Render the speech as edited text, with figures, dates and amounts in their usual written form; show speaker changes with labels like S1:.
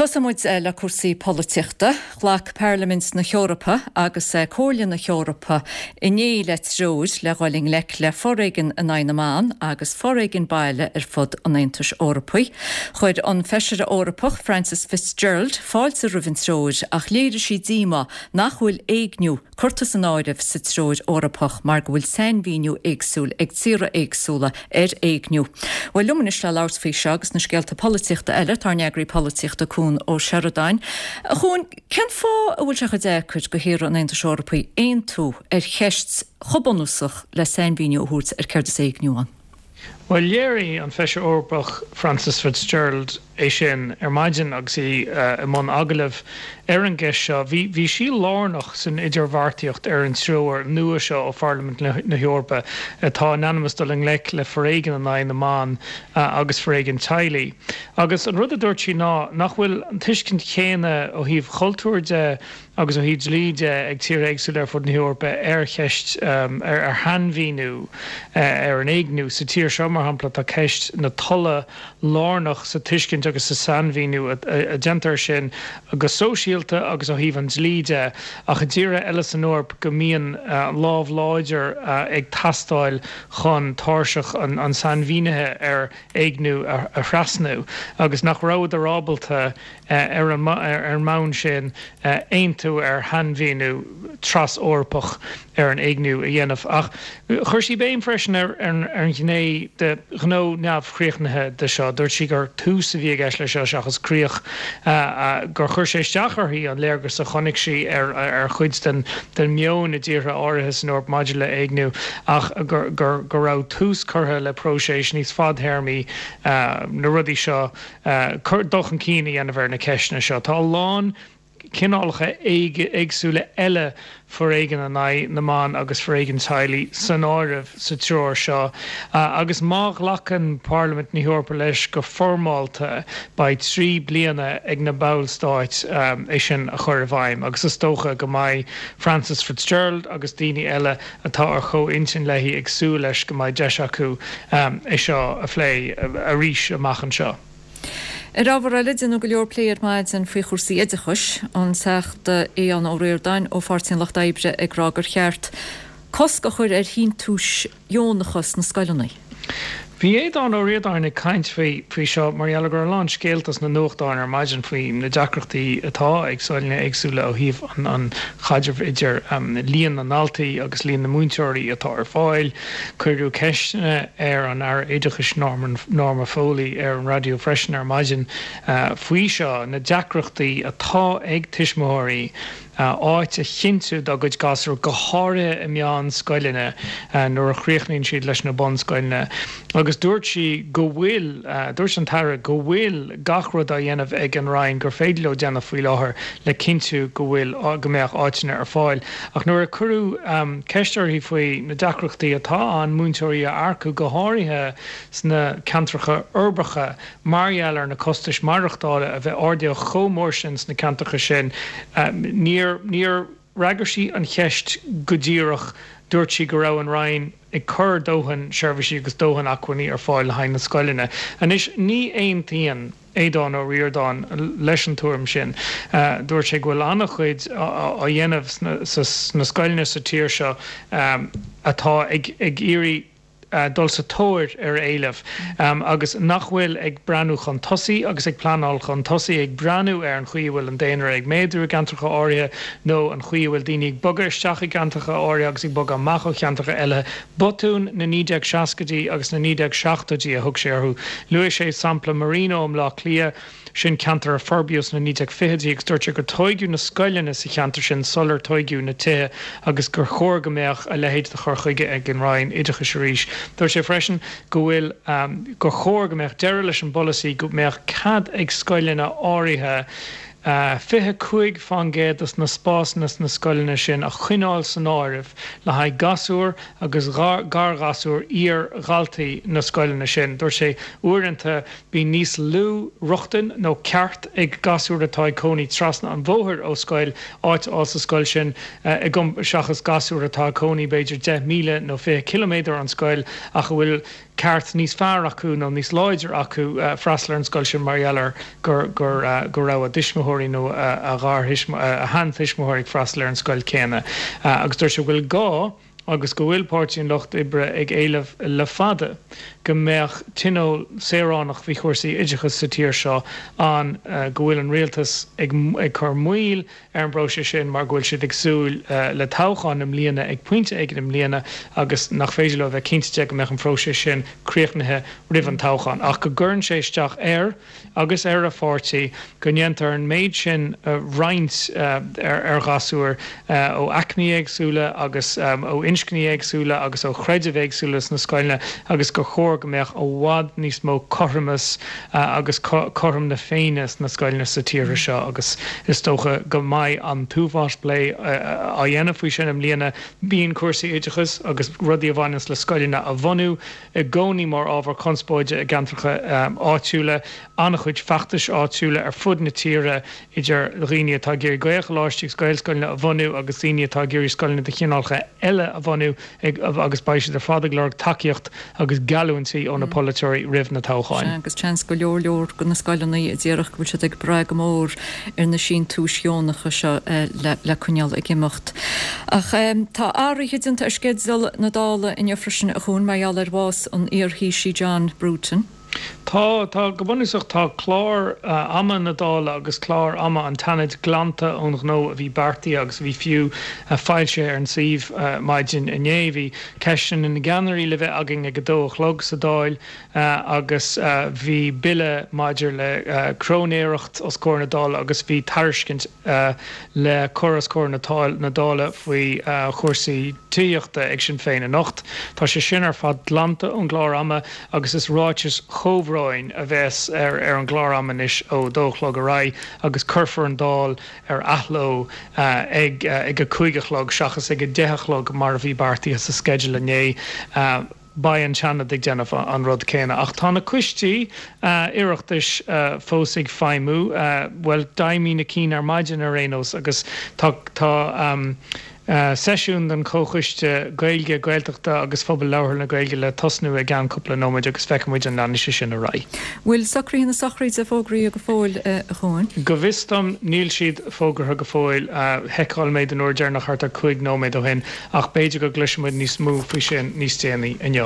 S1: Tosóidh muid le cúrsaí polaitíochta. Ghlac Pairlimint na hEorpa agus Comhairle na hEorpa inné le treoir le dhul i ngleic le foréigean in aghaidh na mban agus foréigean baile ar fud an Aontais Eorpaigh. Chuir an Feisire Eorpach Frances Fitzgerald fáilte roimh an treoir ach léirigh sí díomá nach bhfuil éigniú curtha san áireamh sa Treoir Eorpach mar go bhfuil sainmhíniú éagsúil ag tíortha éagsúla ar éigniú. Bhuel, liom anois le labhairt faoi seo agus na scéalta polaitíochta eile, tá ár n-eagraí polaitíochta Cuan Ó Seireadáin. A Chuain, cén fáth a bhfuil sé chomh deacair do thíortha an Aontais Eorpaigh aontú ar cheist chomh bunúsach le sainmhíniú a thabhairt ar céard is éigniú ann?
S2: Bhuel, léirigh an Feisire Eorpach Frances Fitzgerald é sin ar maidin agus í i mbun agallaimh ar an gceist seo. Bhí bhí sí lárnach san idirbheartaíocht ar an treoir nua seo ó Pharlaimint na hEorpa atá in ainm is dul i ngleic le foréigean in aghaidh na mban agus foréigean teaghlaigh. Agus an rud a dúirt sí ná nach bhfuil an tuiscint chéanna ó thaobh chultúir de agus ó thaobh dlí de ag tíortha éagsúla ar fud na hEorpa ar cheist, ar shainmhíniú ar an éigniú. Sa tír seo, mar shampla, tá ceist na tola lárnach sa tuiscint agus sa sainmhíniú a déantar air sin go sóisialta agus ó thaobh an dlí de, ach i dtíortha eile san Eoraip go mbíonn lámh láidir ag teastáil chun tairseach an tsainmhínithe ar éigniú a thrasnú agus nach rabhadar ábalta ar an mbonn sin, aontú ar shainmhíniú tras-Eorpach ar an éigniú a dhéanamh. Ach chuir sí béim freisin ar an ghné de ghnó neamhchríochnaithe de seo. Dúirt sí gur tús a bhí i gceist leis seo seachas críoch, gur chuir sé isteach uirthi an léargas a chonaic sí ar chuid den meon i dtíortha áirithe san Eoraip maidir le héigniú ach go raibh tús curtha le próiseas níos fadtéarmaí na rudaí seo dul chun cinn a dhéanamh ar na ceisteanna seo. Tá a lán cineálacha éagsúla eile foréigin in aghaidh na mban agus foréigin teaghlaigh san áireamh sa treoir seo agus má ghlacann Parlaimint na hEorpa leis go foirmeálta beidh 3 bliana ag na ballstáit é sin a chur i bhfeidhm agus is dócha go mbeidh Frances Fitzgerald agus daoine eile atá ar chomh-intinn léi ag súil leis go mbeidh deis acu é seo a phlé arís amach anseo.
S1: Ar ábhar eile, déanadh go leor plé ar maidin faoi chúrsaí oideachais, an Teachta Aodhán Ó Ríordáin ó Pháirtí an Lucht Oibre ag rá gur cheart cosc a chur ar shíntiúis dheonacha sna scoileanna.
S2: Bhí Aodhán Ó Ríordáin ag caint faoi faoi seo mar gheall go raibh a lán scéalta sna nuachtáin ar maidin faoi na deacrachtaí atá ag scoileanna éagsúla ó thaobh an chaidrimh idir líon na ndaltaí agus líon na múinteoirí atá ar fáil. Cuireadh ceisteanna ar an Aire Oideachais Norma Foley ar an raidió freisin ar maidin faoi seo, na deacrachtaí atá ag tuismitheoirí áit a chinntiú dá gcuid gasúr, go háirithe i meánscoileanna nuair a chríochnaíonn siad leis na bunscoileanna. Agus dúirt sí go bhfuil, dúirt an tAire go bhfuil gach rud á dhéanamh ag an Roinn gur féidir leo déanamh faoi láthair le cinntiú go bhfuil, go mbeadh áiteanna ar fáil. Ach nuair a cuireadh ceist uirthi faoi na deacrachtaí atá ann múinteoirí a earcú, go háirithe sna ceantracha uirbeacha, Mar gheall ar na costais maireachtála a bheith ardaithe chomh mór sin sna ceantracha sin, níor níor fhreagair sí an cheist go díreach. Dúirt sí go raibh an Roinn ag cur dóthain seirbhísí agus dóthain acmhainní ar fáil le haghaidh na scoileanna. Anois, ní aontaíonn Aodhán Ó Ríordáin leis an tuairim sin. Dúirt sé go bhfuil an-chuid á dhéanamh sna scoileanna sa tír seo atá ag iarraidh dul sa tóir ar éileamh agus nach bhfuil ag breathnú chun tosaigh agus ag pleanáil chun tosaigh, ag breathnú ar an chaoi a bhfuil an daonra ag méadú i gceantracha áirithe nó an chaoi a bhfuil daoine ag bogadh isteach i gceantracha áirithe agus ag bogadh amach ó cheantracha eile. Botúin na 1960idí agus na 1970idí a thug sé orthu. Luaigh sé sampla Marino i mBleá Cliath. Sin ceantar a forbraíodh sna 1920idí agus dúirt sé gur tóigeadh na scoileanna sa cheantar sin sular tóigeadh na tithe agus gur chóir go mbeadh a leithéid de chur chuige ag an Roinn Oideachais arís. Dúirt sé freisin go bhfuil gur chóir go mbeadh deireadh leis an bpolasaí go mbeadh cead ag scoileanna áirithe 25% de na spásanna sna scoileanna sin a choinneáil san áireamh le haghaidh gasúr agus garghasúr iar-dhaltaí na scoileanna sin. Dúirt sé uaireanta Bíonn níos lú rochtain nó ceart ag gasúir atá ag cónaí trasna an bhóthair ó scoil áit a fháil sa scoil sin seachas gasúir atá ag cónaí b'fhéidir 10 míle nó 20 ciliméadar ón scoil ach a bhfuil. ceart níos fearr acu nó níos láidre acu freastal ar an scoil sin mar gheall ar gur gur go raibh a dtuismitheoirí nó a a sheantuismitheoirí ag freastal ar an scoil céanna. Agus dúirt sé go bhfuil gá agus go bhfuil Páirtí an Lucht Oibre ag éileamh le fada go mbeadh tionól saoránach faoi chúrsaí oideachais sa tír seo ann, go bhfuil an rialtas ag cur moill ar an bpróiseas sin mar go bhfuil siad ag súil le toghchán i mbliana ag pointe éigin i mbliana agus nach féidir leo a bheith cinnte de go mbeadh an próiseas sin críochnaithe roimh an toghchán ach go gcuireann sé isteach air agus ar a pháirtí go ndéantar an méid sin roinnt ar ghasúir ó aicmí éagsúla agus ó inscní éagsúla agus ó chreidimh éagsúla sna scoileanna agus gur chóir go mbeadh i bhfad níos mó cothromas agus cothrom na Féinne sna scoileanna sa tír seo agus is dócha go mbeidh an t-uafás plé á dhéanamh faoi sin i mbliana. Bíonn cúrsaí oideachais agus rudaí a bhaineanns le scoileanna a bhunú i gcónaí mar ábhar conspóide i gceantracha áitiúla. An-chuid feachtais áitiúla ar fud na tíre idir dhaoine atá ag iarraidh Gaelcholáistí agus Gaelscoileanna a bhunú agus daoine atá ag iarraidh scoileanna de chineálacha eile a bhunú agus beidh siad ar fad ag lorg tacaíocht agus geallúintí ó na polaiteoirí roimh na toghcháin.
S1: Sea, agus seans go leor leor de na scoileanna a déarfadh go bhfuil siad ag brath go mór ar na síntiúis dheonacha seo le coinneáil ag imeacht. Ach tá athruithe déanta ar sceideal na Dála inniu freisin, a Chuain, mar gheall ar bhás an iar-Thaoisigh John Bruton.
S2: Tá, tá, go bunúsach tá clár ama na Dála agus clár ama an tSeanaid glanta ón ghnó a bhí beartaithe agus a bhí fiú foilsithe ar an suíomh maidin inné. Bhí ceisteanna na gceannairí le bheith againn ag a dó a chlog sa Dáil agus bhí bille maidir le cróinéireacht os comhair na Dála agus bhí tairiscint le cur os comhair na Dála faoi chúrsaí tithíochta ag Sinn Féin anocht. Tá sé sin ar fad glanta ón gclár ama agus is ráitis chomhbhróin a bheas ar an gclár ama anois ó a dó a chlog ar aghaidh agus cuirfear an Dáil ar athló ag ag a 5 a chlog seachas ag a 10 a chlog mar a bhí beartaithe sa sceideal inné. Beidh an Seanad ag déanamh an rud céanna. Ach tá na coistí Oireachtais fós ag feidhmiú, bhuel, d'fheidhmigh na cinn ar maidin ar aon nós, agus tá tá seisiún den Chomhchoiste Gaeilge, Gaeltachta agus Phobal Labhartha na Gaeilge le tosnú i gceann cúpla nóiméid agus feicfidh muid an leanfaidh sé sin ar aghaidh.
S1: Bhfuil socruithe na sochraide fógraithe go fóill, a Chuain?
S2: Go bhfios dom níl siad fógartha go fóill. Sheiceáil mé den uair deireanach thart ar 5 nóiméad ó shin. Ach b'fhéidir go gcloisfidh muid níos mó faoi sin níos déanaí inniu.